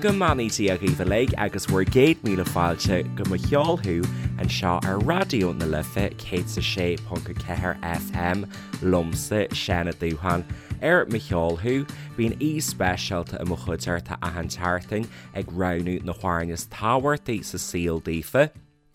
Go mbeannaí Dia dhaoibh uilig agus bhur gcéad míle fáilte go Mo Cheol Thú anseo ar Raidió na Life 106.4 FM liomsa, Seán Ó Dúsháin. Ar Mo Cheol Thú, bíonn aoi speisialta i mo chuideachta achan tseachtain ag roghnú na hamhráin is tábhachtaí sa saol daofa.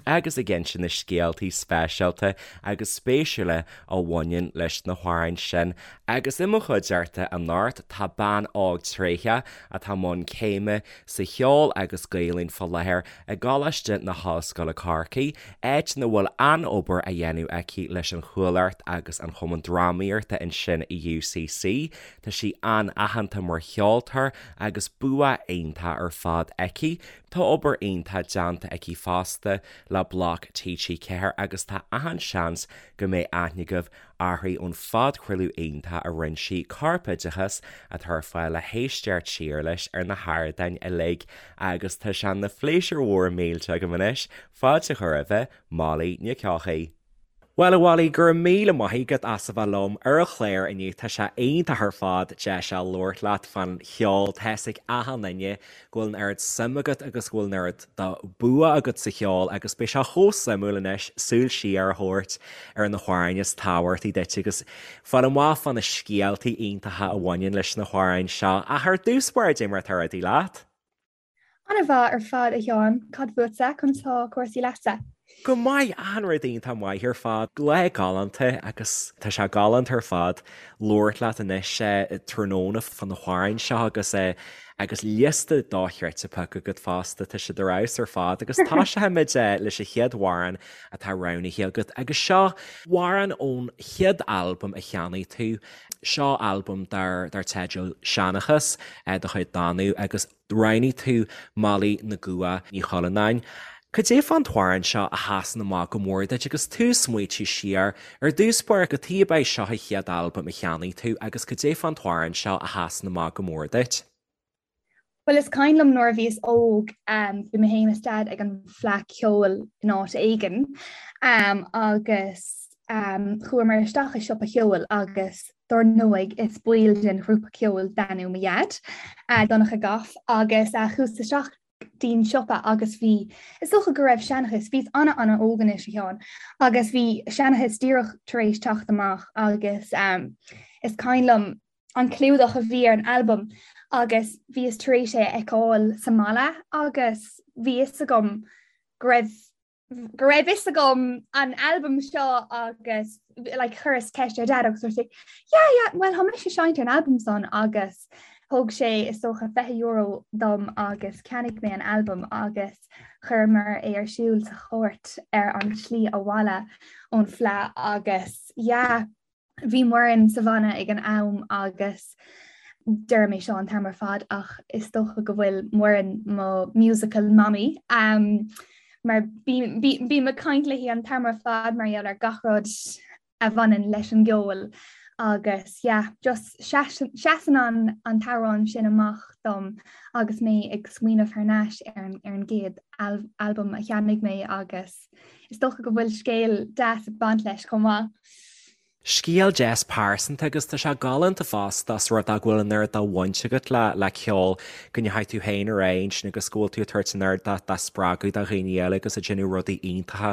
agus ag inse na scéaltaí speisialta agus spéisiúla a bhaineann leis na hamhráin sin. Agus i mo chuideachta anocht tá bean óg tréitheach atá i mbun céime sa cheol agus Gaelainn fá láthair i gColáiste na hOllscoile Corcaigh, áit ina bhfuil an-obair á dhéanamh aici leis an Chuallacht agus an Chumann Drámaíochta ansin i UCC. Tá sí an-aitheanta mar cheoltóir agus bua iontach ar fad aici. Tá obair iontach déanta aici fosta le Bloc TG4 agus tá achan seans go mbeidh aithne agaibh uirthi ón phodchraoladh iontach a rinne sí, Corpoideachas, atá ar fáil le héisteacht siar leis ar na hardáin uilig agus tá sé ina phléisiúr mhór millteach agam anois fáilte a chur roimhe, Molly Nic Eochaidh. Bhuel, a Mholly, go raibh míle maith agat as a bheith liom ar an chlár inniu. Tá sé iontach ar fad deis a labhairt leat fán cheol. Tá fhios ag achan duine go bhfuil an oiread suim agat agus go bhfuil an oiread de bua agat sa cheol agus beidh sé chomh suimiúil anois súil siar a thabhairt ar na hamhráin is tábhachtaí duit agus fáil amach fá na scéaltaí iontacha a bhaineann leis na hamhráin seo. Ach ar dtús báire, cad é mar atá rudaí leat? An-mhaith ar fad, a Sheáin. Cad fútsa? Conas tá cúrsaí leatsa? Go maith, achan rud iontach maith ar fad. Lá galánta agus tá sé galánta ar fad labhairt leat anois tráthnóna fá na hamhráin seo agus agus liosta dochreidte pioctha agat fosta, tá siad ar fheabhas ar fad agus tosóimid leis an chéad amhrán atá roghnaithe agat agus seo amhrán ón chéad albam a cheannaigh tú. Seo albam dar teideal Seanchas de chuid Danú agus roghnaigh tú Molly na gCumha Ní Chuilleanáin. Cad é fán t-amhrán seo a sheasann amach go mór duit agus tú ag smaoitiú siar ar dtús báire cad chuige ab é seo an chéad albam a cheannaigh tú agus cad é fán t-amhrán seo a sheasann amach go mór duit? Bhuel is cuimhin liom nuair a bhíos óg bhí mé féin is Dad ag an bhFleadh Ceoil in áit éigin agus chuamar isteach i siopa cheoil agus dár ndóigh is baill den ghrúpa ceoil Danú mo Dhaid, Donncha Goff, agus chuas isteach dtí'n siopa agus bhí, is dócha go raibh Seanchas, bhíos ana-ana-óg anois a Sheáin, agus bhí Seanchas díreach tar éis teacht amach agus is cuimhin liom an clúdach a bhí ar an albam agus bhíos tar éis é a fheiceáil sa mbaile agus bhí fhios agam go raibh go raibh fhios agam an albam seo agus like, chuireas ceist ar Dad agus dúirt sé yeah yeah well tá mise seinnte an albam san agus thug sé is dócha €20 dom agus cheannaigh mé an albam agus chuireamar é ar siúl sa chairt ar an tslí abhaile ón Fleadh agus yeah Bhí Muireann sa bhanna ag an am agus deirim é seo an t-am ar fad ach is dócha go bhfuil Muireann mo musical mommy um, mar bím ag caint léi an t-am ar fad mar gheall ar gach rud a bhaineann leis an gceol agus yeah, just seasann an an t-amhrán sin amach dom agus mé ag smaoineamh thar n-ais ar an, ar an gcéad al albam a cheannaigh mé agus Is dócha go bhfuil scéal deas ag baint leis chomh maith. Scéal deas pearsanta agus tá sé galánta fosta os rud é go bhfuil an oiread de bhaint agat le le ceol, go ndeachaigh tú féin ar aghaidh ansin agus go bhfuil tú ag tabhairt an oiread de de spreagadh do dhaoine eile agus ag déanamh rudaí iontacha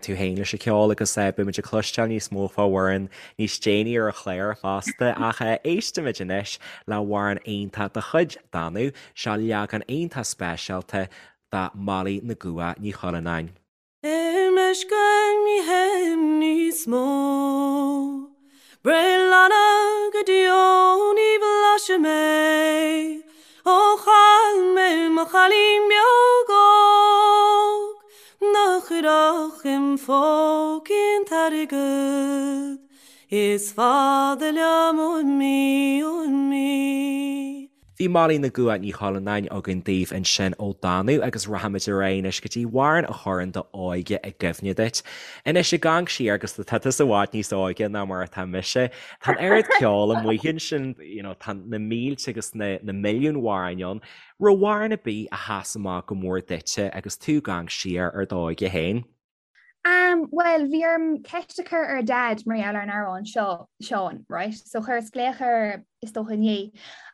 tú féin leis an cheol agus beimid ag cloisteáil níos mó fá Mhuireann níos déanaí ar an chlár fosta ach éistimid anois le hamhrán iontach de chuid Danú, seo leagan iontach speisialta de Molly na gCumha Ní Chuilleanáin. I meisce ní théim níos mó. Breithlana go deo ní bhlaisfidh mé ó chaill mé mo chailín beag óg nach chuirfeadh im phócaí an t-airgead is fada liom uaim í uaim í. Bhí Molly na gCumha Ní Chuilleanáin againn daoibh ansin ó Danú agus rachaimid ar aghaidh anois go dtí amhrán a chuireann d'óige i gcuimhne duit. Anois ag amharc siar agus tá tusa i bhfad níos óige ná mar atá mise, tá an oiread ceoil amuigh ansin, you know, tá na mílte agus na na milliúin amhráin ann. Raibh amhrán ar bith a sheas amach go mór duitse agus tú ag amharc siar ar d'óige féin? Um, well, bhí orm ceist a chur ar Dad mar gheall ar an amhrán seo, Seán, right? So chuireas glaoch air is dócha inné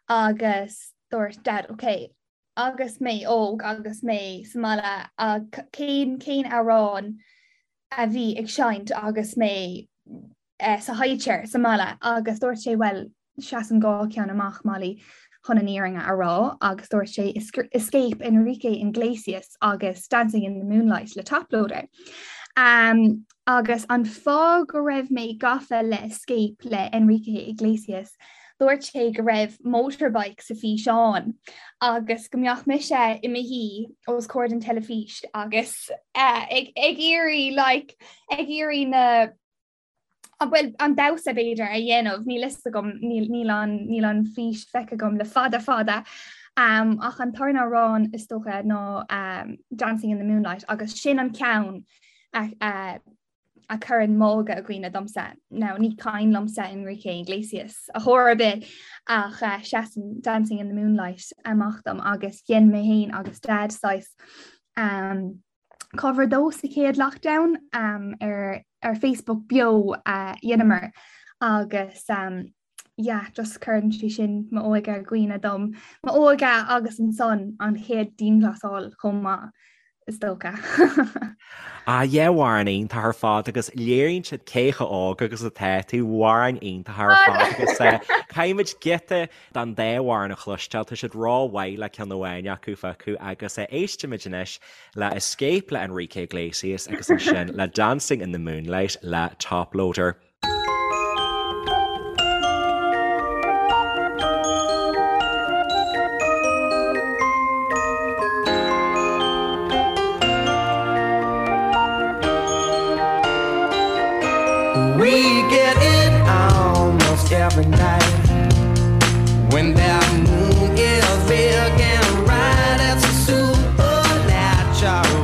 agus dúirt Dad, okay, agus mé óg agus mé sa mbaile cén cén amhrán a bhí ag seinnt agus mé eh, sa high chair sa mbaile agus dúirt sé bhuel seasann 2 ceann amach Molly chun an fhírinne a rá agus dúirt sé Escape Enrique Iglesias agus Dancing in the Moonlight le Toploader. Um, agus an fáth go raibh mé gafa le Escape le Enrique Iglesias, dúirt sé go raibh motorbike sa físeán agus go mbeadh mise i mo shuí os comhair den teilifís agus uh, ag, ag iarraidh like, ag iarraidh na bhuel an damhsa b'fhéidir a dhéanamh, níl fhios agam, níl an, níl an fís feicthe agam le fada fada. Um, ach an tarna amhrán is dócha ná um, Dancing in the Moonlight agus sin an ceann a, a, a chuireann m'óige i gcuimhne domsa. Now, ní cuimhin liomsa Enrique Iglesias ar chor ar bith ach uh, seasann Dancing in the Moonlight amach dom agus dhein mé féin agus Dad saghas um, cover dó sa chéad lockdown um, ar, ar Facebook beo a uh, dheineamar agus um, yeah, just cuireann sé sin m'óige i gcuimhne dom. M'óige agus ansan an chéad dianghlasáil chomh maith is dócha. Ah yeah amhrán iontach ar fad agus léiríonn siad cé chomh óg agus atá tú amhráin iontach ar fad agus eh, caithfimid giota den dá amhrán a chloisteáil, tá siad rómhaith le ceann amháin acu a phiocadh agus eh, éistimid anois le Escape le Enrique Iglesias agus ansin le Dancing in the Moonlight le Toploader. We get it almost every night When that moon is big and bright It's a supernatural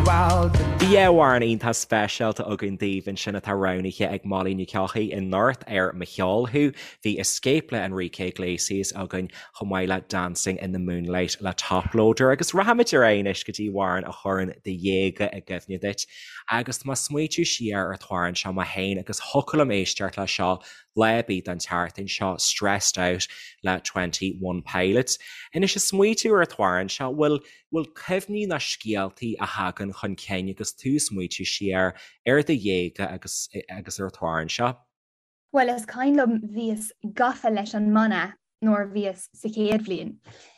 Bhí amhrán iontach speisialta againn daoibh ansin atá roghnaithe ag Molly Nic Eochaidh anocht ar Mo Cheol Thú. Bhí Escape le Enrique Iglesias againn chomh maith le Dancing in the Moonlight le Toploader agus rachaimid ar aghaidh anois go dtí amhrán a chuireann do dhéaga i gcuimhne duit. Agus tá mé ag smaoitiú siar ar an t-amhrán seo mé féin agus thiocfadh liom éisteacht le seo lá ar bith den tseachtain seo, Stressed Out le 21 Pilots. Anois ag smaoitiú ar an t-amhrán seo, bhfuil, bhfuil cuimhní ná scéaltaí a thagann chun cinn agus tú ag smaoitiú siar ar do dhéaga agus, agus ar an t-amhrán seo? Bhuel is cuimhin liom bhíos gafa leis an mbanna nuair a bhíos sa chéad bhliain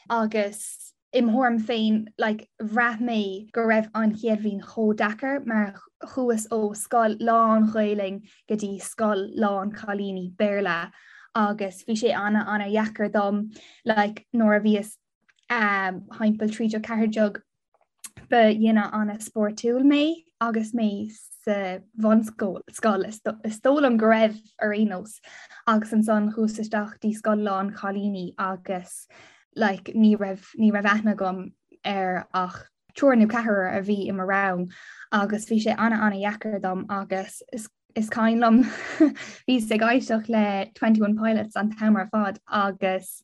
agus im thuairim féin like bhraith mé go raibh an chéad bhliain chomh deacair mar chuas ó scoil lán Ghaelainn go dtí scoil lán cailíní Béarla agus bhí sé ana ana dheacair dom like nuair a bhíos um, thimpeall 13 14 Ba dhuine an-spórtúil mé agus mé sa bhunscoil, scoil, is dóigh liom go raibh ar aon nós, agus ansan chuas isteach dtí scoil lán chailíní agus like ní raibh, ní raibh aithne agam ar ach triúr nó ceathrar a bhí i mo rang agus bhí sé ana-ana-dheacair dom agus is Is cuimhin liom bhíos ag éisteacht le 21 Pilots an t-am ar fad agus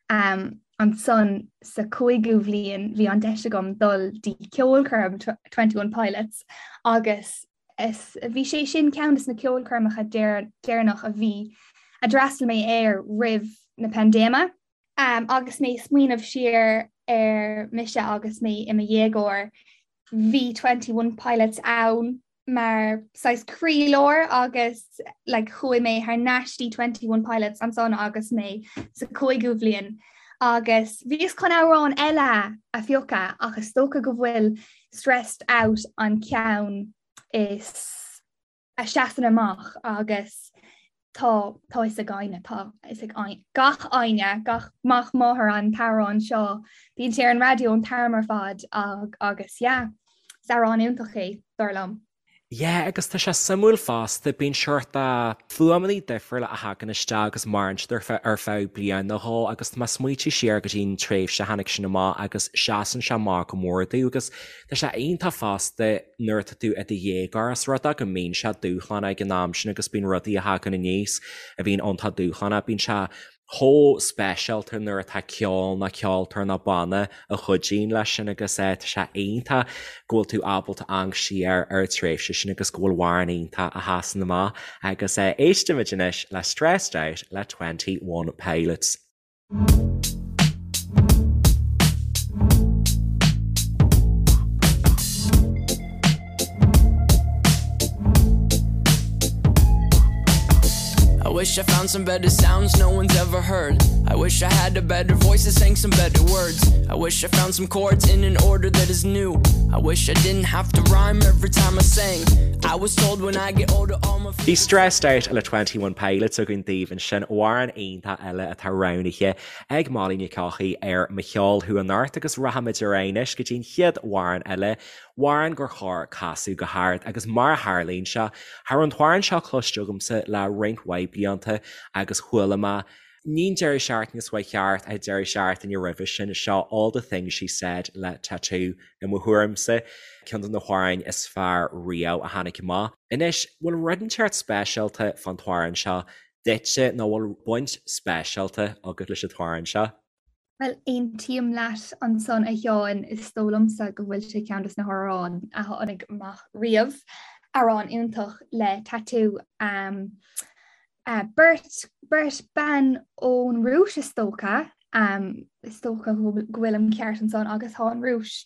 um, ansan sa cúigiú bhliain bhí an deis agam dul dtí ceolchoirm 21 Pilots agus is, bhí sé sin ceann de na ceolchoirmeacha deireanach a bhí a d'fhreastail mé air roimh na paindéime. Um, agus mé ag smaoineamh siar ar mise agus mé i mo dhéagóir, bhí 21 Pilots ann mar saghas croílár agus like chuaigh mé thar n-ais dtí 21 Pilots ansan agus mé sa cúigiú bhliain agus bhíos chun amhrán eile a phiocadh ach is dócha go bhfuil Stressed Out an ceann is a seasann amach agus tá tá fhios ag éinne, tá fhios ag gach éinne, gach mac máthar an t-amhrán seo, bíonn sé ar an raidió an t-am ar fad agus yeah, is amhrán iontach é, dar liom. Yeah, agus tá sé suimiúil fosta, bíonn seort fuaimeanna difriúla a thagann isteach agus maireann siad ar feadh ar feadh bliain nó dhó agus tá mé ag smaoitiú siar go dtí an tréimhse a tháinig sin amach agus seasann sé amach go mór domh agus Tá sé iontach fosta nuair atá tú i do dhéagóir, os rud é go mbíonn sé dúshlánach ag an am sin agus bíonn rudaí a thagann aníos a bhíonn iontach dúshlánach. Bíonn sé chomh speisialta nuair atá ceol nó ceoltóir nó banna a chuidíonn leis sin agus tá sé iontach go bhfuil tú ábalta amharc siar ar an tréimhse sin agus go bhfuil amhrán iontach a sheasann amach agus éistimid anois le Stressed Out le 21 Pilots. I wish I found some better sounds no one's ever heard. I wish I had a better voice that sang some better words. I wish I found some chords in an order that is new. I wish I didn't have to rhyme every time I sang. I was told when I get older all my Bhí Stressed Out le 21 Pilots againn daoibh ansin, amhrán iontach eile atá roghnaithe ag Molly Nic Eochaidh ar Mo Cheol Thú anocht agus rachaimid ar aghaidh anois go dtí an chéad amhrán eile, amhrán gur chóir casadh go hard agus mar a tharlaíonn sé, cha raibh an t-amhrán seo cloiste agamsa le roinnt mhaith blianta agus chuala mé ní an deireadh seachtaine seo chuaigh thart ach an deireadh seachtaine roimhe sin, seo All the Things She Said le t.A.T.u. i mo thuairimse, ceann de na hamhráin is fearr riamh a tháinig amach. Anois, bhfuil rud inteacht speisialta fán t-amhrán seo duitse nó bhfuil baint speisialta agat leis an t-amhrán seo? Bhuel, aontaím leat ansan a Sheáin, is dóigh liomsa go bhfuil sé ceann des na hamhráin a tháinig amach riamh. Amhrán iontach le t.A.T.u. Beirt, beirt bean ón Rúis is dócha, is dócha go bhfuilim ceart ansan agus tá an Rúis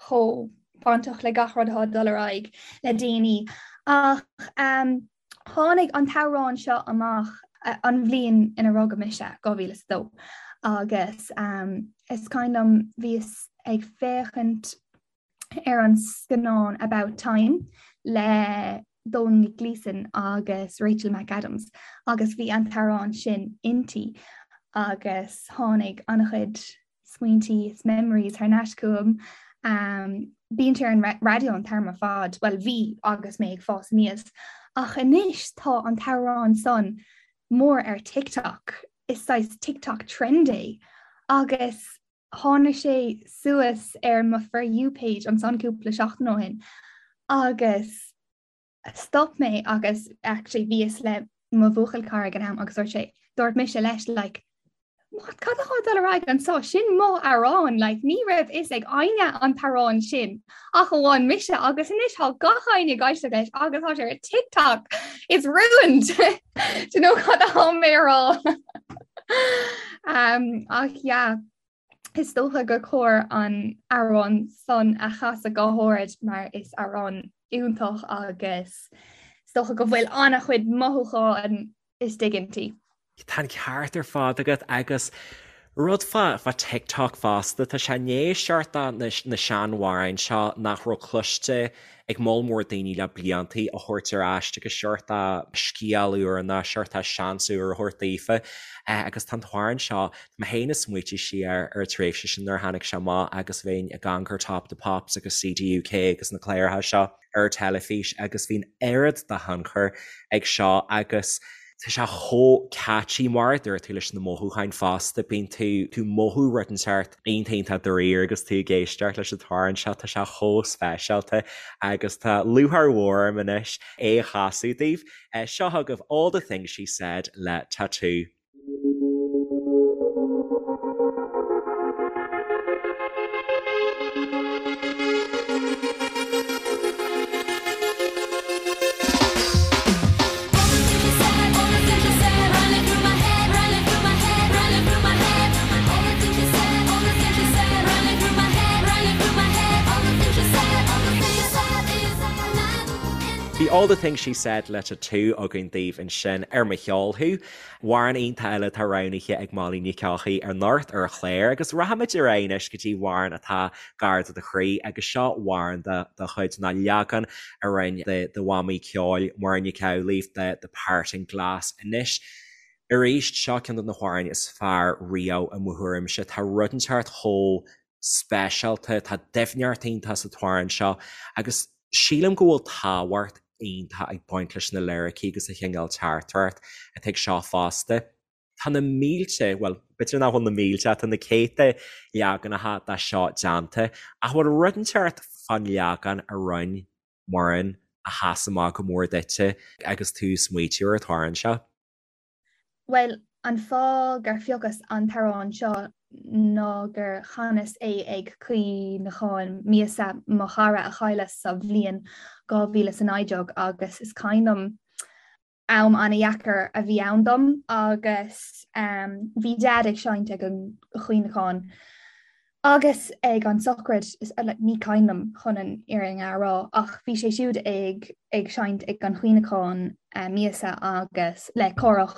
chomh bainteach le gach rud atá ag dul ar aghaidh le déanaí. Ach tháinig an t-amhrán seo amach an bhliain ina rugadh mise, 2002, agus is cuimhin liom bhíos ag féachaint ar an scannán About Time le Domhnall Gleeson agus Rachel McAdams agus bhí an t-amhrán sin inti agus tháinig an-chuid smaointí is memories thar n-ais chugam. Bíonn sé ar an raidió an t-am ar fad, bhuel bhí agus mé ag fás aníos, ach anois tá an t-amhrán san mór ar TikTok, is saghas TikTok trend é agus tháinig sé suas ar mo For You page ansan cúpla seachtain ó shin agus stop mé agus actually bhíos le mo bhuachaill cara ag an am agus dúirt sé, dúirt mise leis like what cad atá ag dul ar aghaidh anseo sin mo amhrán like ní raibh fhios ag éinne an t-amhrán sin ach amháin mise agus anois tá gach éinne ag éisteacht leis agus tá sé ar TikTok it's ruined do you know cad atá mé a rá um, ach yeah is dócha gur chóir an amhrán san a chasadh go hard mar is amhrán iontach agus is dócha go bhfuil an-chuid mothúchán istigh inti. Tá an ceart ar fad agat agus rud fá fá TikTok fosta, tá sé i ndiaidh seort de na seanamhráin seo nach raibh cloiste ag moll mór daoine le bliantaí a thabhairt ar ais agus seort de scéal úr nó seort de seans úr a thabhairt daofa agus tá an t-amhrán seo, tá mé féin ag smaoitiú siar ar an tréimhse sin nuair a tháinig sé amach agus bhínn ag amharc ar Top of the Pops agus CDUK agus na cláracha seo ar an teilifís agus bhí an oiread de thionchar ag seo agus Tá sé chomh catchy mar a dúirt tú leis na mothúcháin fosta, bíonn tú tú mothú rud inteacht iontach iontach dáiríre agus tú ag éisteacht leis an t-amhrán seo, tá sé chomh speisialta agus tá lúcháir mhór orm anois é a chasadh daoibh. Seo chugaibh All the Things She Said le t.A.T.u. Bhí All the Things She Said le t.A.T.u againn daoibh ansin ar Mo Cheol Thú. Amhrán iontach eile atá roghnaithe ag Molly Nic Eochaidh anocht ar an chlár agus rachaimid ar aghaidh anois go dtí amhrán atá gar do do chroí agus seo amhrán de do chuid ná leagan a rinne do mhamaí ceoil Muireann Nic Amhlaoibh de The Parting Glass. Anois arís seo ceann de na hamhráin is fearr riamh i mo thuairimse. Tá rud inteacht chomh speisialta, tá doimhneacht iontach sa t-amhrán seo agus sílim go bhfuil tábhacht iontach ag baint leis na liricí agus an chineál teachtaireacht atá ag seo fosta. Tá na mílte, bhuel, b'fhéidir nach bhfuil na mílte ach tá na céadta leaganacha de seo déanta, ach bhfuil rud inteacht fán leagan a rinne Muireann a sheas amach go mór duitse agus tú ag smaoitiú ar an t-amhrán seo? Bhuel, an fáth gur phiocas an t-amhrán seo ná gur chanas é ag cuimhneachán míosa mo chara a cailleadh sa bhliain 2019 agus is cuimhin liom am an-dheacair a bhí ann dom agus bhí Deaid ag seinnt ag an chuimhneachán. Agus ag an sochraid, ní cuimhin liom chun an fhírinne a rá, ach bhí sé siúd ag ag seinnt ag an chuimhneachán míosa agus le Cárthach,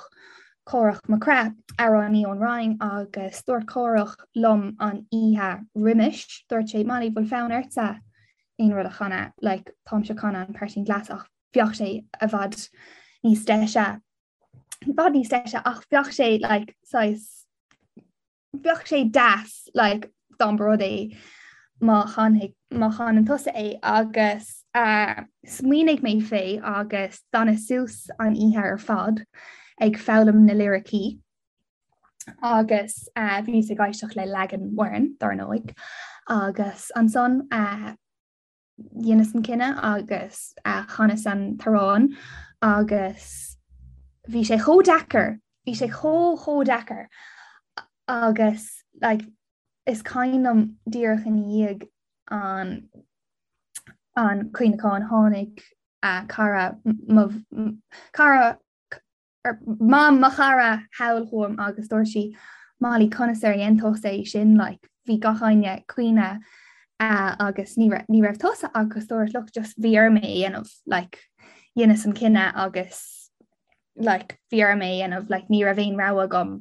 Cárthach Mac Craith, amhránaí ón Rinn agus dúirt Cárthach liom an oíche roimis, dúirt sé, Molly, bhfuil fonn ortsa aon rud a chanadh, like táimse ag canadh an Parting Glass ach bheadh sé i bhfad níos deise, i bhfad níos deise ach bheadh sé like saghas Bheadh sé deas like dá mba rud é má chanfaidh má chanann tusa é agus uh, smaoinigh mé fé agus d'fhanas suas an oíche ar fad ag foghlaim na liricí agus uh, bhíos ag éisteacht le leagan Mhuireann dar ndóigh agus ansan uh, dheineas an cinneadh agus chanas an t-amhrán agus bhí sé chomh deacair, bhí sé chomh chomh deacair agus like, is cuimhin liom díreach ina dhiaidh an an cuimhneachán tháinig uh, cara mo cara Mam mo chara thall chugam agus dúirt sí, Molly, conas ar dhein tusa é sin, like, bhí gach éinne ag caoineadh agus ní raibh, ní raibh tusa agus dúirt, look, just bhí orm é a dhéanamh, like, dheineas an cinneadh agus, like, bhí orm é a dhéanamh, like, ní raibh aon rogha agam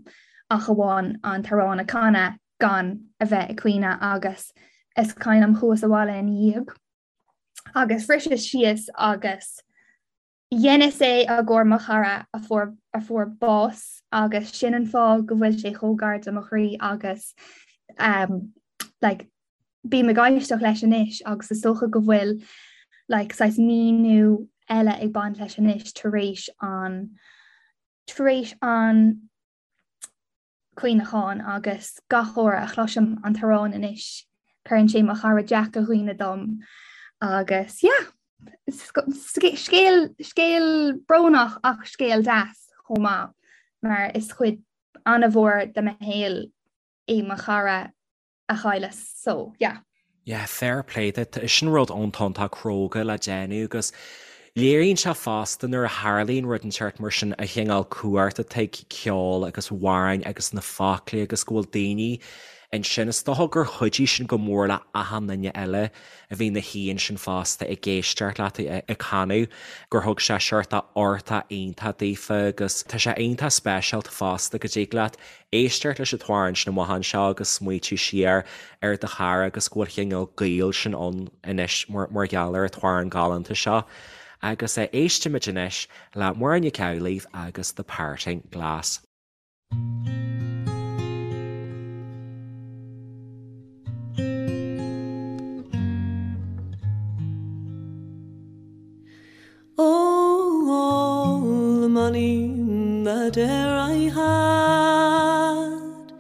ach amháin an t-amhrán a chanadh gan a bheith ag caoineadh agus is cuimhin liom chuas abhaile ina dhiaidh agus bhriseas síos agus Dheineas é i gcomhair mo chara a fuair a fuair bás agus sin an fáth go bhfuil sé chomh gar do mo chroí agus um, like, bím ag éisteacht leis anois agus is dócha go bhfuil like, saghas míniú eile ag baint leis anois tar éis an tar éis an cuimhneachán agus gach uair a chloisim an t-amhrán anois cuireann sé mo chara Jack i gcuimhne dom agus yeah scéal scéal brónach ach scéal deas chomh maith mar is cuid an-mhór de mo shaol é mo chara a chailleas so yeah. Yeah, fair play duit. Sin rud iontach iontach cróga le déanamh agus léiríonn sé fosta nuair a tharlaíonn rud inteacht mar sin an chineál cumhacht atá ag ceol agus amhráin agus na foclaí agus go bhfuil daoine ansin. Is dócha gur chuidigh sin go mór le achan duine eile a bhí ina shuí ansin fosta ag éisteacht leat ag canadh, gur thug sé seort uchtach iontach daofa agus tá sé iontach speisialta fosta go dtig leat éisteacht leis an t-amhrán sin amach anseo agus smaoitiú siar ar do chara agus go bhfuil cineál gaol sin ann anois mar gheall ar an t-amhrán galánta seo. Agus éistimid anois le Muireann Nic Amhlaoibh agus The Parting Glass. Oh, all the money that e'er I had,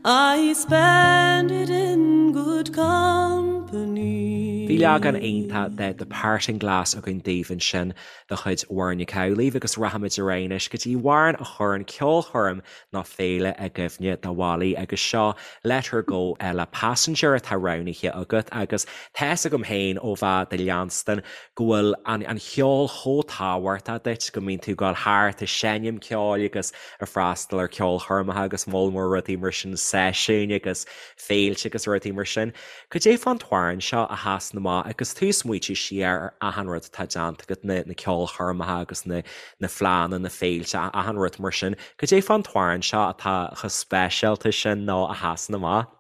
I spend it in good company. Bhí leagan iontach de The Parting Glass againn daoibh ansin de chuid Mhuireann Nic Amhlaoibh agus rachaimid ar aghaidh anois go dtí amhrán a chuireann ceolchoirm nó féile i gcuimhne do Mholly agus seo Let Her Go le Passenger atá roghnaithe agat agus tá fhios agam féin ó bheith do leanstan go bhfuil an an cheol chomh tábhachtach duit go mbíonn tú ag dul thart ag seinm ceoil agus ag freastal ar ceolchoirmeacha agus moll mór rudaí mar sin, seisiúin agus féilte agus rudaí mar sin. Cad é fán t-amhrán seo a sheasann amach agus tú ag smaoitiú siar ar achan rud atá déanta agat, na na ceolchoirmeacha agus na na fleánna, na féilte, achan rud mar sin. Cad é fán t-amhrán seo atá chomh speisialta sin nó a sheasann amach?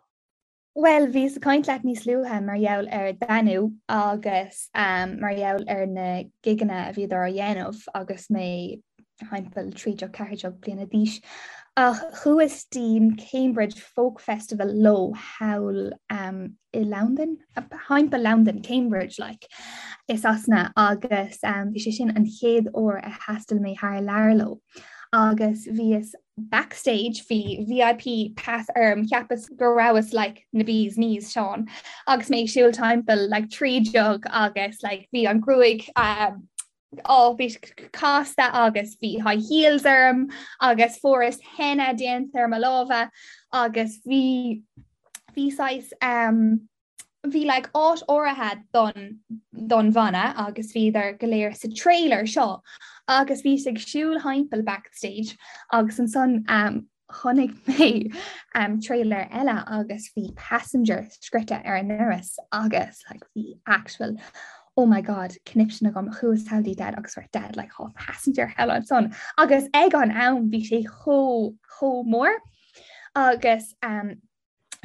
Bhuel, bhíos ag caint leat níos luaithe mar gheall ar Danú agus mar gheall ar na gigeanna a bhíodar á dhéanamh agus mé thimpeall 13, 14 bliana d'aois. Ach chuas dtí'n Cambridge Folk Festival leo thall i Londain, thimpeall Londain, Cambridge like, i Sasana agus bhí sé sin an chéad uair a thaistil mé thar lear leo. Agus bhíos backstage, bhí VIP pass orm, cheapas go rabhas like na bee's knees, Seán, agus mé ag siúl timpeall like 13 agus like bhí an gruaig um, Ó, bhí casta agus bhí high heels orm agus fuaireas henna déanta ar mo lámha agus bhí bhí saghas um, bhí like áit áirithe don don bhanna agus bhíodar go léir sa trailer seo agus bhíos ag siúl thimpeall backstage agus ansan um, chonaic mé um, trailer eile agus bhí passenger scrite ar an ndoras agus like, bhí actual oh my god conniption agam chuas thall dtí dad agus dúirt dad like oh, passenger thall ansan agus ag an am bhí sé chomh chomh mór agus um,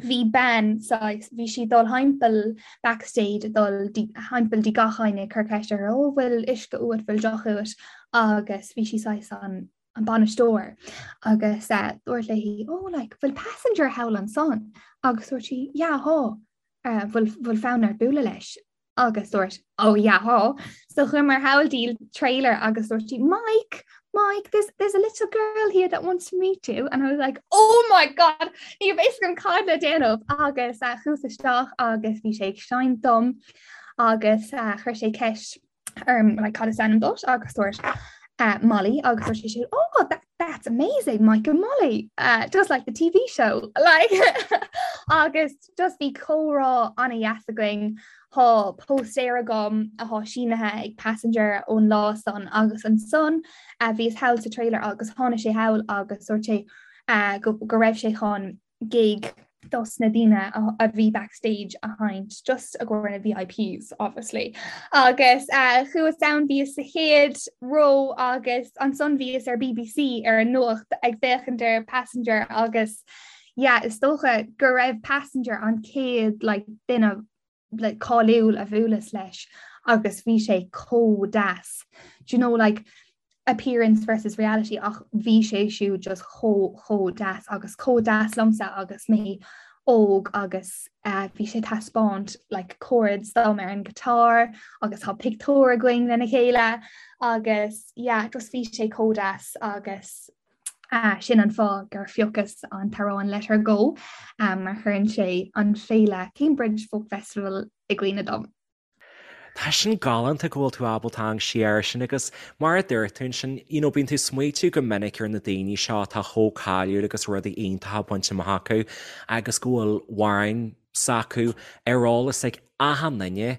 bhí bean saghas bhí sí dul thimpeall backstage dul thimpeall dtí gach éinne ag cur ceist orthu ó bhfuil uisce uait bhfuil deoch uait agus bhí sí saghas an an bainisteoir agus uh, dúirt léi oh like bhfuil passenger thall ansan agus dúirt sí yeah thá uh, bhfuil bhfuil fonn ort bualadh leis agus dúirt oh yeah thá so chuamar thall dtí trailer agus dúirt sí Mike Mike there's, there's a little girl here that wants to meet you and I was like oh my god ní raibh fhios agam cad le déanamh agus uh, chuas isteach agus bhí sé ag seinnt dom agus uh, chuir sé ceist orm like cad is ainm duit agus dúirt uh, Molly agus dúirt sé siúd oh that, that's amazing Mike and Molly uh, just like the TV show like agus just bhí comhrá an-dheas againn Tá póstaer agam atá sínithe ag Passenger ón lá san agus ansan uh, bhíos thall sa trailer agus tháinig sé thall agus dúirt sé uh, go, go raibh sé chun gig dos na daoine a bhí backstage a sheinnt just i gcomhair na VIPs obviously. Agus uh, chuas ann bhíos sa chéad ró agus ansan bhíos ar BBC ar an nuacht ag féachaint ar Passenger agus yeah, is dócha go raibh Passenger an chéad like, duine like, cáiliúil a bhuaileas leis agus bhí sé chomh deas. Do you know like appearance versus reality ach bhí sé siúd just chomh chomh deas agus chomh deas liomsa agus mé óg agus uh, bhí sé taispeáint like chords dom ar an guitar agus tá pictiúr againn lena chéile agus yeah, just bhí sé chomh deas agus uh, sin an fáth gur phiocas an t-amhrán Let Her Go um, mar chuireann sé an féile Cambridge Folk Festival i gcuimhne dom. Tá sin galánta go bhfuil tú ábalta amharc siar air sin agus mar a dúirt tú ansin, you know, bíonn tú ag smaoitiú go minic ar na daoine seo atá chomh cáiliúil agus rudaí iontacha bainte amach acu agus go bhfuil amhráin s'acu ar eolas ag achan duine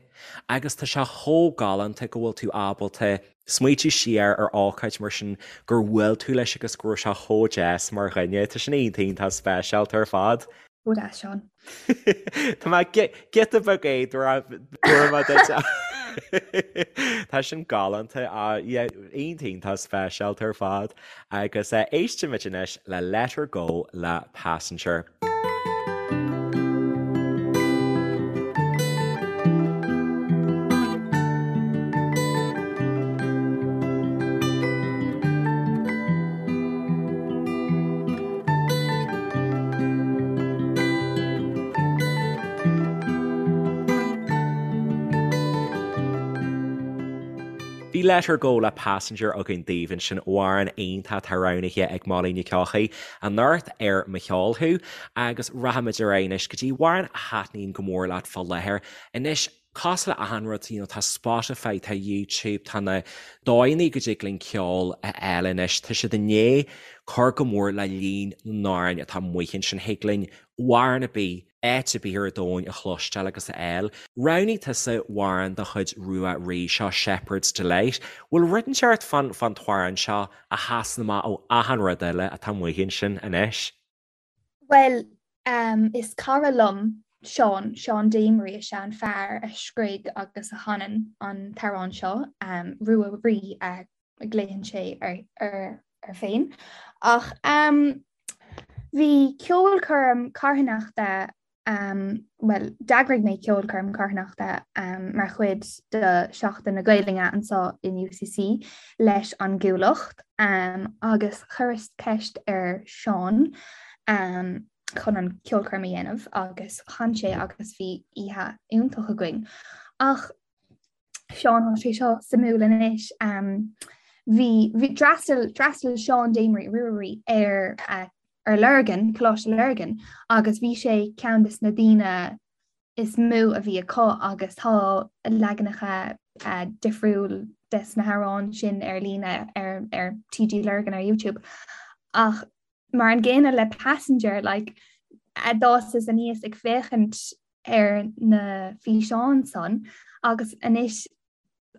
agus tá sé chomh galánta go bhfuil tú ábalta smaoitiú siar ar ócáid mar sin gur bhuail tú leis agus go raibh sé chomh deas mar dhuine. Tá sin iontach iontach speisialta ar fad. Chomh deas, Seán. Tá mé giota beag éadrom duit. Tá sin galánta iontach iontach speisialta ar fad agus éistfimid anois le Let Her Go le Passenger. Bhí Let Her Go le Passenger againn daoibh ansin, amhrán iontach atá roghnaithe ag Molly Nic Eochaidh anocht ar Mo Cheol Thú agus rachaimid ar aghaidh anois go dtí amhrán a thaitníonn go mór leat fá láthair. Anois, Cosúil le achan rud, you know, tá Spotify, tá YouTube, tá na dóigheanna go dtig linn ceol a fháil anois, tá siad i ndiaidh cur go mór le líon na n-amhrán atá amuigh ansin. Thig linn amhrán ar bith, áit ar bith ar domhan a chloisteáil agus a fháil. Roghnaigh tusa amhrán de chuid Rua Rí, seo Shepherd's Delight. Bhfuil rud inteacht fán fán t-amhrán seo a sheasann amach ó achan rud eile atá amuigh ansin anois? Bhuel, is cara liom Seán, Seán Damery is ea an fear a scrígh agus a chanann an t-amhrán seo, Rua Rí a ghlaonn sé air féin. Ach bhí ceolchoirm carthanachta bhuel, d'eagraigh mé ceolchoirm carthanachta mar chuid de Sheachtain na Gaelainne anseo in UCC leis an gCuallacht agus chuireas ceist ar Seán chun an ceolchoirm a dhéanamh agus chan sé agus bhí oíche iontach againn. Ach Seán tá sé seo suimiúil anois. Bhí bhí d'fhreastail d'fhreastail Seán Damery Rua Rí ar uh, ar Lurgan, Coláiste Lurgan agus bhí sé ceann des na daoine is mó a bhí acu agus tá leaganacha uh, difriúil des na hamhráin sin ar líne ar, ar TG Lurgan ar YouTube. Ach mar an gcéanna le Passenger like, a d'fhásas aníos ag féachaint ar na físeáin san agus anois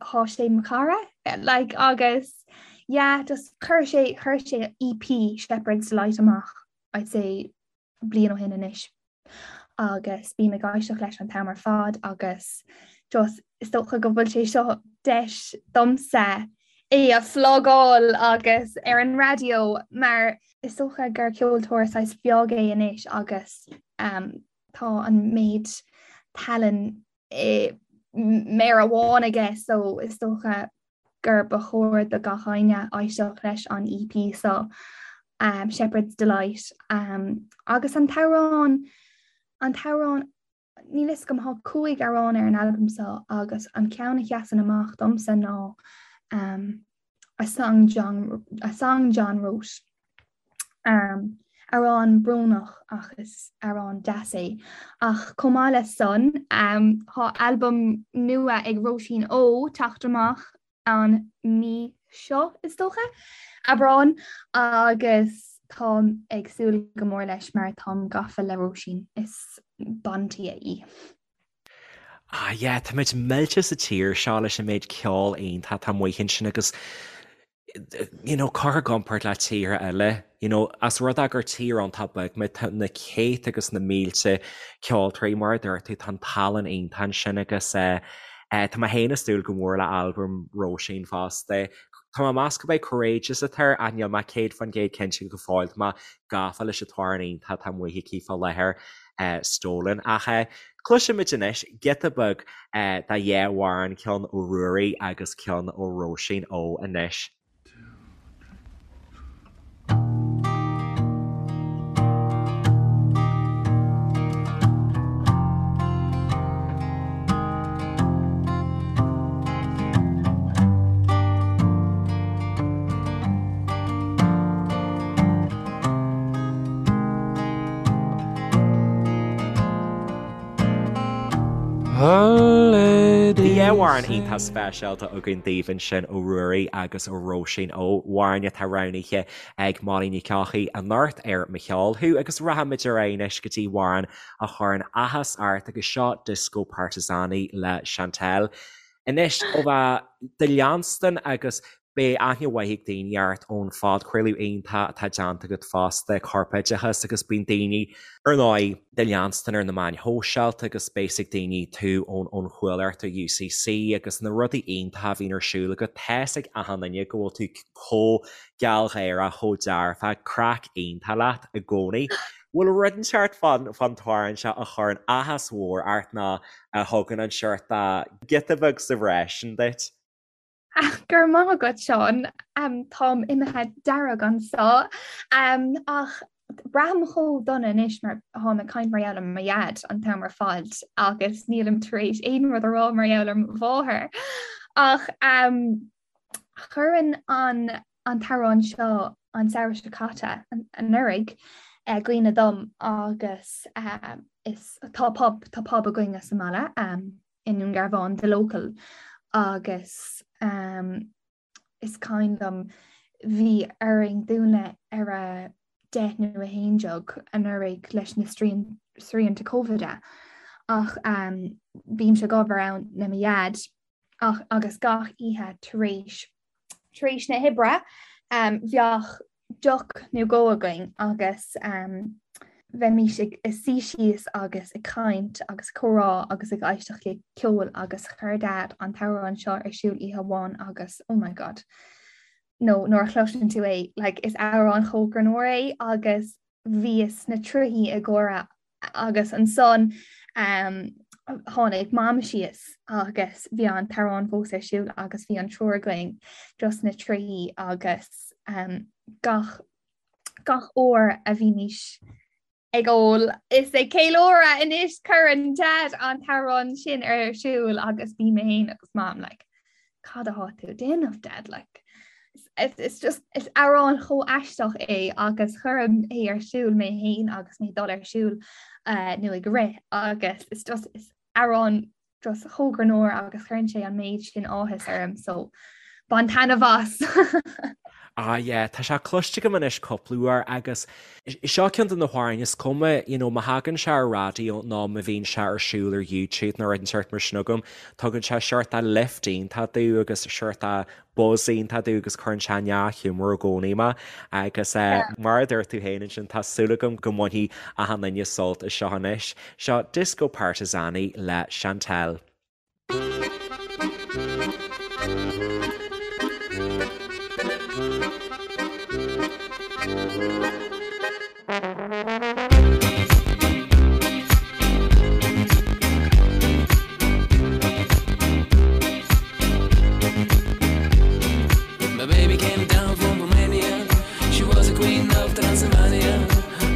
thá sé mo chara like agus yeah just chuir sé chuir sé EP Shepherd's Delight amach. I'd say bliain ó shin anois agus bím ag éisteacht leis an t-am ar fad agus just is dócha go bhfuil sé seo deis domsa é a phlugáil agus ar an raidió mar is dócha gur ceoltóir saghas beag é anois agus um, tá an méid tallann i méar amháin aige so is dócha gur ba chóir do gach éinne éisteacht leis an EP seo um, Shepherd's Delight um, agus an t-amhrán an t-amhrán níl fhios agam tá 5 amhrán ar an albam seo agus an ceann a sheasann amach domsa ná um, A Song John, A Song John Wrote. Um, amhrán brónach ach is amhrán deas é. Ach chomh maith le san, um, tá albam nua ag Róisín Ó teacht amach an mí seo is dócha, Aibreán, agus táim ag súil go mór leis mar táim gafa le Róisín, is bandia í. Ah yeah, táimid millte sa tír seo leis an méid ceol iontach atá amuigh ansin agus you know, curtha i gcomparáid le tíortha eile, you know, as rud é gur tír iontach beag muid, tá na céadta agus na mílte ceoltóirí mar a dúirt tú, tá an tallann iontach ansin agus eh, eh, tá mé féin ag súil go mór le albam Róisín fosta. Tá mé ag meas gurb é Courageous atá air ach níl mé 100% cinnte go fóill, tá mé gafa leis an t-amhrán iontach atá amuigh aici fá láthair. Stolen. Ach cloisfimid anois giota beag de dhá amhrán, ceann ó Ruairí agus ceann ó Róisín Ó anois. Bhí amhrán iontach speisialta againn daoibh ansin ó Ruairí agus ó Róisín Ó, amhráin atá roghnaithe ag Molly Nic Eochaidh anocht ar Mo Cheol Thú agus rachaimid ar aghaidh anois go dtí amhrán a chuireann áthas ort agus seo Disko Partizani le Chantelle. Anois ó bheith do leanstan agus Beidh aithne mhaith ag daoine ort ón phodchraoladh iontach atá déanta agat fosta, Corpoideachas, agus bíonn daoine, ar ndóigh, do leanstan ar na meáin shóisialta agus beidh 'fhios ag daoine tú ón ón Chuallacht ar UCC agus na rudaí iontacha a bhíonn ar siúl agat. Tá 'fhios ag achan duine go bhfuil tú chomh gealgháireach, chomh dearfach, craic iontach leat i gcónaí. Bhfuil rud inteacht fán fán t-amhrán seo a chuireann áthas mhór ort nó a thugann an seort de giota beag sa bhreis sin duit? Go raibh maith agat Seán. Táim imithe dearg anseo. Ach braithim chomh dona anois mar táim ag caint mar gheall ar mo dhaid an t-am ar fad agus nílim tar éis aon rud a rá mar gheall ar mo mháthair. Ach chuireann an an t-amhrán seo an samhradh seo caite anuraidh i gcuimhne dom agus is tá pub tá pub againne sa mbaile. i nDún Garbhán, The Local, agus is cuimhin liom bhí orainn dúnadh ar a 10 nó 11 anuraidh leis na srianta Covid ach bímse ag obair ann le mo dhaid ach agus gach oíche tar éis Tar éis na hoibre bheadh deoch nó dhó againn agus bheimís ag suí síos agus ag caint agus comhrá agus ag éisteacht le ceol agus chuir Dad an t-amhrán seo ar siúl oíche amháin agus oh my god nó nuair a chloiseann tú é like is amhrán chomh greannmhar é agus bhíos sna trithí ag gáire agus ansan tháinig Mam síos agus bhí an t-amhrán fós ar siúl agus bhí an triúr againn just sna trithí agus gach gach uair a bhímís ag ól is ag ceiliúradh anois cuireann Dad an t-amhrán sin ar siúl agus bím mé féin agus Mam like cad atá tú ag déanamh dad like it's just is amhrán chomh aisteach é agus cuirim é ar siúl mé féin agus mé ag dul ar siúl uh, nó ag rith agus it's just is amhrán just chomh greannmhar agus cuireann sé an méid sin áthas orm so bain taitneamh as. Ah yeah, tá sé cloiste agam anois cúpla uair agus seo ceann de na hamhráin is cuma, you know, má thagann sé ar raidió nó má bhíonn sé ar siúl ar YouTube nó rud inteacht mar sin agam, tugann sé seort de lift iontach domh agus seort de buzz iontach domh agus cuireann sé i ndea-ghiúmar i gcónaí mé agus mar a dúirt tú féin ansin, tá súil agam go mbainfidh achan duine sult as seo anois. Seo Disko Partizani le Chantelle. My baby came down from Romania. She was a queen of Transylvania.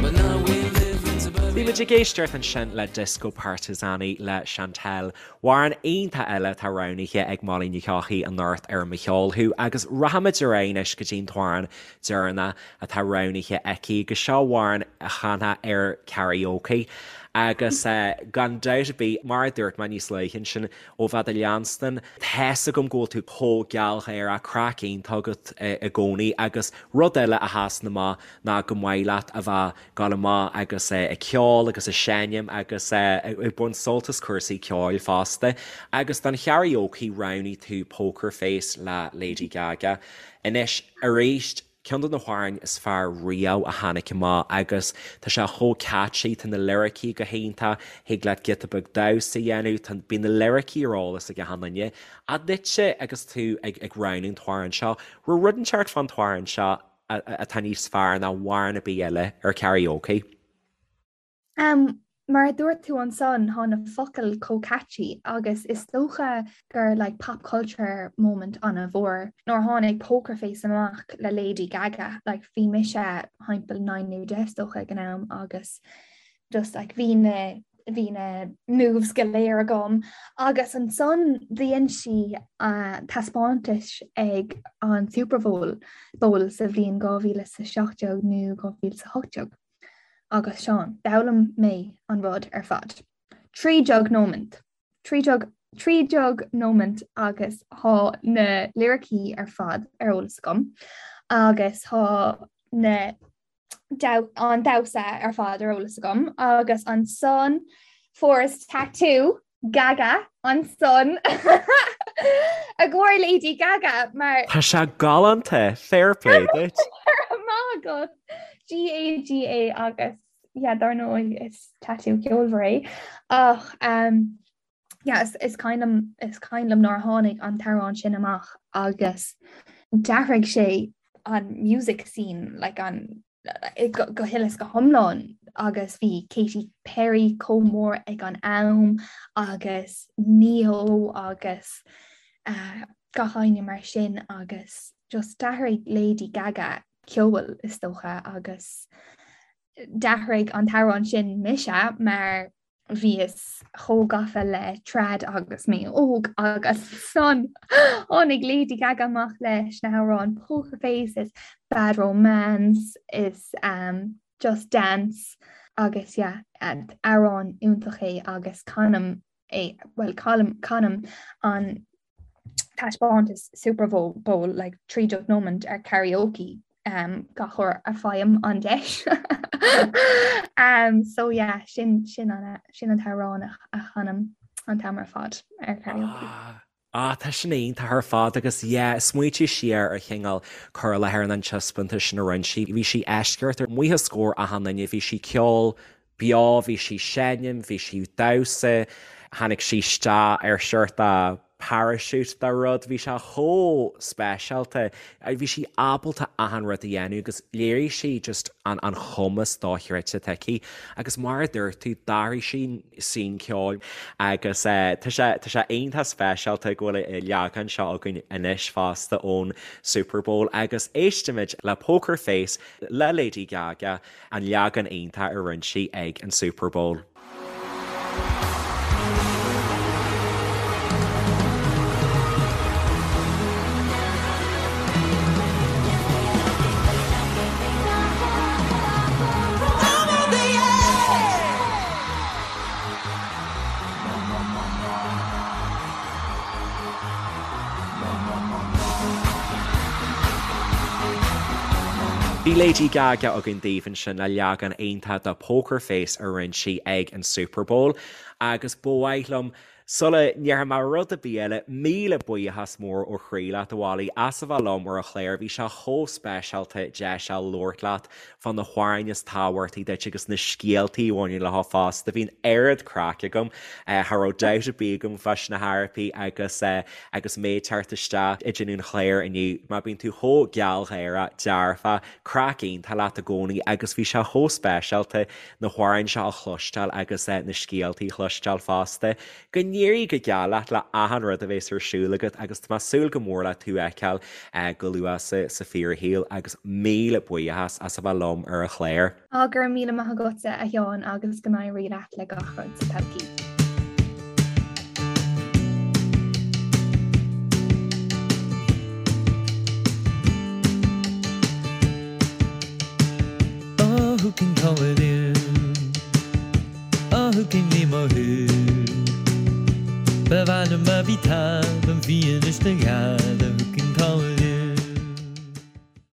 But now we live in suburbia. Bhí muid ag éisteacht ansin le Disko Partizani le Chantelle. Amhrán iontach eile atá roghnaithe ag Molly Ní Eochaidh anocht ar Mo Cheol Thú agus rachaimid ar aghaidh anois go dtí an t-amhrán deireanach atá roghnaithe aici agus seo amhrán a chanfá ar karaoke agus gan dabht ar bith, mar a dúirt mé níos luaithe ansin, ó bheith do leanstan, tá's agam go bhfuil tú chomh gealgháireach, craic iontach agat i gcónaí agus rud eile a sheasann amach ná go maith leat a bheith dul amach agus ag ceol agus ag seinm agus ag baint sult as cúrsaí ceoil fosta. Agus don karaoke roghnaigh tú Poker Face le Lady Gaga. Anois, arís, ceann de na hamhráin is fearr riamh a tháinig amach agus tá sé chomh catchy, tá na liricí go hiontach, thig leat giota beag damhsa a dhéanamh, tá, bíonn na liricí ar eolas ag achan duine. Ach duitse agus tú ag roghnú an t-amhrán seo, raibh rud inteacht fán t-amhrán seo atá níos fearr ná amhrán ar bith eile ar karaoke. Mar a dúirt tú ansan, tá na focail chomh catchy agus is dócha gur like pop culture moment an-mhór nuair a tháinig Poker Face amach le Lady Gaga, like bhí mise thimpeall 9 nó 10 is dócha ag an am agus just like bhí na bhí na moves go léir agam agus ansan dhein sí taispeántas ag an Super Bowl Bowl sa bhliain 2017 nó 2018 agus Seán, d'fhoghlaim mé an rud ar fad. 13 nóimint. 13 13 nóimint agus tá na liricí ar fad ar eolas agam agus tá na an damhsa ar fad ar eolas agam agus ansan fuaireas tattoo Gaga ansan i gcomhair Lady Gaga mar Tá sé galánta, fair play duit. Maith agat. G-A-G-A agus yeah, dar ndóigh is tattoo ceolmhar é ach um, yeah, is, is cuimhin liom is cuimhin liom nuair a tháinig an t-amhrán sin amach agus d'athraigh sé an music scene like an go, go huile is go hiomlán agus bhí Katy Perry chomh mór ag an am agus Ne-Yo agus uh, gach éinne mar sin agus just d'athraigh Lady Gaga ceol is dócha agus d'athraigh an t-amhrán sin mise mar bhíos chomh gafa le trad agus mé óg agus ansan tháinig Lady Gaga amach leis na hamhráin Poker Face is Bad Romance is um, Just Dance agus yeah, amhrán iontach é agus canaim é well canaim canaim an taispeántas Super Bowl like 13 nóimint ar karaoke um, gach uair a fhaighim an deis. um, so yeah, sin, sin, an, sin an t-amhrán a, a chanaim an t-am ar fad ar karaoke. Ah. Ah, tá sin iontach ar fad agus yeah, smaointigh siar ar chineál cur i láthair an taispeántais sin a rinne sí. Bhí sí eisceacht amuigh os comhair achan duine, bhí sí ceol beo, bhí sí seinm, bhí sí damhsa, tháinig sí isteach ar seort de parachute de rud, bhí sé chomh speisialta, bhí sí ábalta achan rud a dhéanamh agus léirigh sí just an an chumas dochreidte atá aici agus mar a dúirt tú, d'athraigh sí scene ceoil agus tá sé tá sé iontach speisialta go bhfuil an leagan seo againn anois fosta ón Super Bowl agus éistimid le Poker Face le Lady Gaga. An leagan iontach a rinne sí ag an Super Bowl. Bhí Lady Gaga againn daoibh ansin le leagan iontach de Poker Face a rinne sí ag an Super Bowl agus ba mhaith liom Sula ndéarfaidh mé rud ar bith eile, míle buíochas mór ó chroí leat, a Mholly, as a bheith liom ar an chlár. Bhí sé chomh speisialta deis a labhairt leat fá na hamhráin is tábhachtaí duit agus na scéaltaí a bhaineann leo fosta. Bhí an oiread craic agam. Cha raibh dabht ar bith agam fá na harapaí agus agus mé ag teacht isteach ag déanamh an chláir inniu. Mar bíonn tú chomh gealgháireach, dearfach, craic iontach leat i gcónaí agus bhí sé chomh speisialta na hamhráin seo a chloisteáil agus na scéaltaí a chloisteáil fosta. Go n-éirí go geal leat le achan rud a bheas ar siúl agat agus tá mé ag súil go mór le tú a fheiceáil go luath sa fíorshaol agus míle buíochas as a bheith liom ar an chlár. Á, go raibh míle maith agatsa a Sheáin agus go n-éirí leat le gach rud sa todhchaí. Oh, who can call it in? Oh, who can name a who? Ba mhaith liom a bhí talamh bhí anois na gheal.